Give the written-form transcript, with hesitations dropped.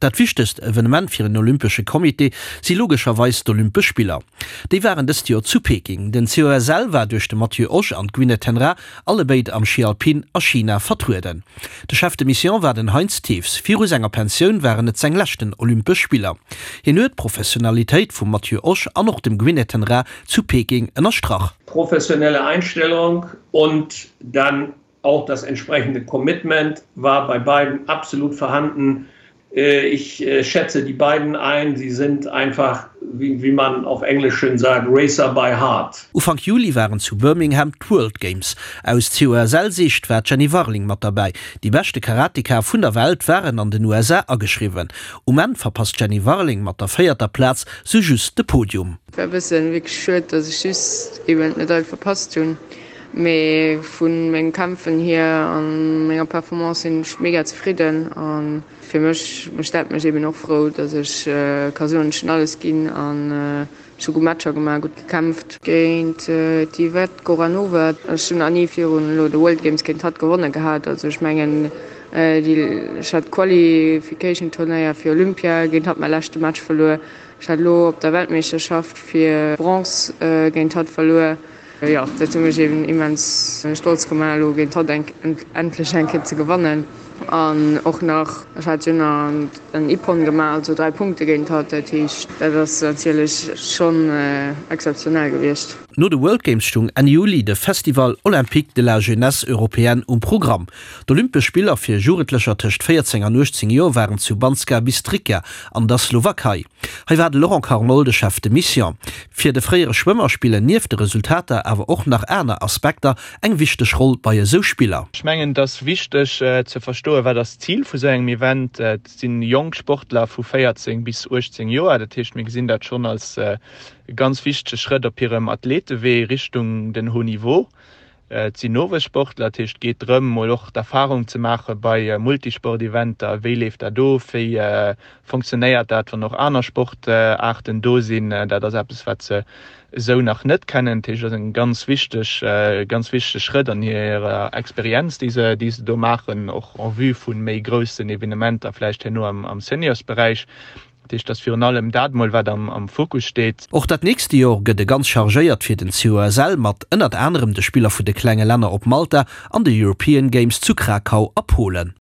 Dat wichtegst Evenement fir en Olympesche Comité si logescherweis d'Olympesch Spiller. Déi waren dëst Joer zu Peking. Den COSL war duerch de Matthieu Osch an d'Gwyneth Ten Raa allebéid am Schi Alpin a China vertrueden. De Chef de Mission war den Heinz Thews. Viru senger Pensioun waren et seng leschten Olympesch Spiller. Hien huet d'Professionalitéit vum Matthieu Osch an och dem Gwyneth Ten Raa zu Peking ënnerstrach. Professionelle Einstellung und dann Auch das entsprechende Commitment war bei beiden absolut vorhanden. Äh, ich äh, schätze die beiden ein. Sie sind einfach, wie, wie man auf Englisch schön sagt, Racer by heart. Ufank Juli waren zu Birmingham d'World Games. Aus COSL-Siicht war d'Jenny Warling mat derbäi. Déi beschte Karateka vun der Welt waren an den USA ageschriwwen. Um Enn verpasst d'Jenny Warling mat der véierter Plaz sou just de Podium. War e bëssen wierklech schued, dass ech just eben d'Medail verpasst hunn. Mee vu mengem Kämpfen hier an menger Performance sinn ech mega zefridden an fir mech mécht dat mech eben och frou, dass ech ka soen, ech hunn alles ginn an ech hu gutt Matcher gemaach, gutt gekämpft. Géint d'Yvette Goranova, ech hunn nach ni virun elo de World Games géint hatt gewonne gehat, also ech mengen déi ech hat d'Qualification Turnéier fir Olympia géint hatt mäi leschte Match verluer, ech hat elo op der Weltmeeschterschaft fir Bronze géint hatt verluer. Jo, dat huet mech eben immens stolz gemaach, elo géint hatt endlech eng Kéier ze gewannen. An och nach, ech hat jo nach en Ippon gemaach, also 3 Punkte géint hatt. Dat heescht, dat ass natierlech schonn exzeptionell gewiescht. No de World Games stung Enn Juli de Festival Olympique de la Jeunesse Européenne um Programm. D'Olympesch Spiller fir Jugendlecher tëscht 14 an 18 Joer waren zu Banska Bystrica an der Slowakei. Hei war de Laurent Carnol de Chef de Mission. Fir de fréiere Schwëmmer spillen nieft de Resultater awer och nach aner Aspekter eng wichteg Roll bei esou Spiller. Ech mengen, et ass wichteg ze verstoen, wat ass d'Zil vu sou engem Event. Et si jonk Sportler vu 14 bis 18 Joer. Dat heescht, mir gesinn dat schonn als e ganz wichtege Schrëtt op hirem Athletewee Richtung den Haut Niveau. Et sinn Nowuessportler, dat heescht et geet drëm, mol och d'Erfarung ze maache bei Multisport-Eventer, wéi leeft dat of, wéi fonctionnéiert dat, wann och aner Sportaarten do sinn. Dat ass eppes, wat se esou nach net kennen. Dat heescht, et ass e ganz wichteg, ganz wichtege Schrëtt an hirer Experienz, déi se, déi se do maachen, och en vue vu méi groussen Evenementer vläicht herno am Seniorsberäich. Dat heescht, dass virun allem dat mol, wat am Fokus steet. Och dat nächste Jor gëtt e ganz chargéiert fir den COSL mat ënnert anerem de Spiller vu de klenge Länner op Malta an de European Games zu Krakau a Polen.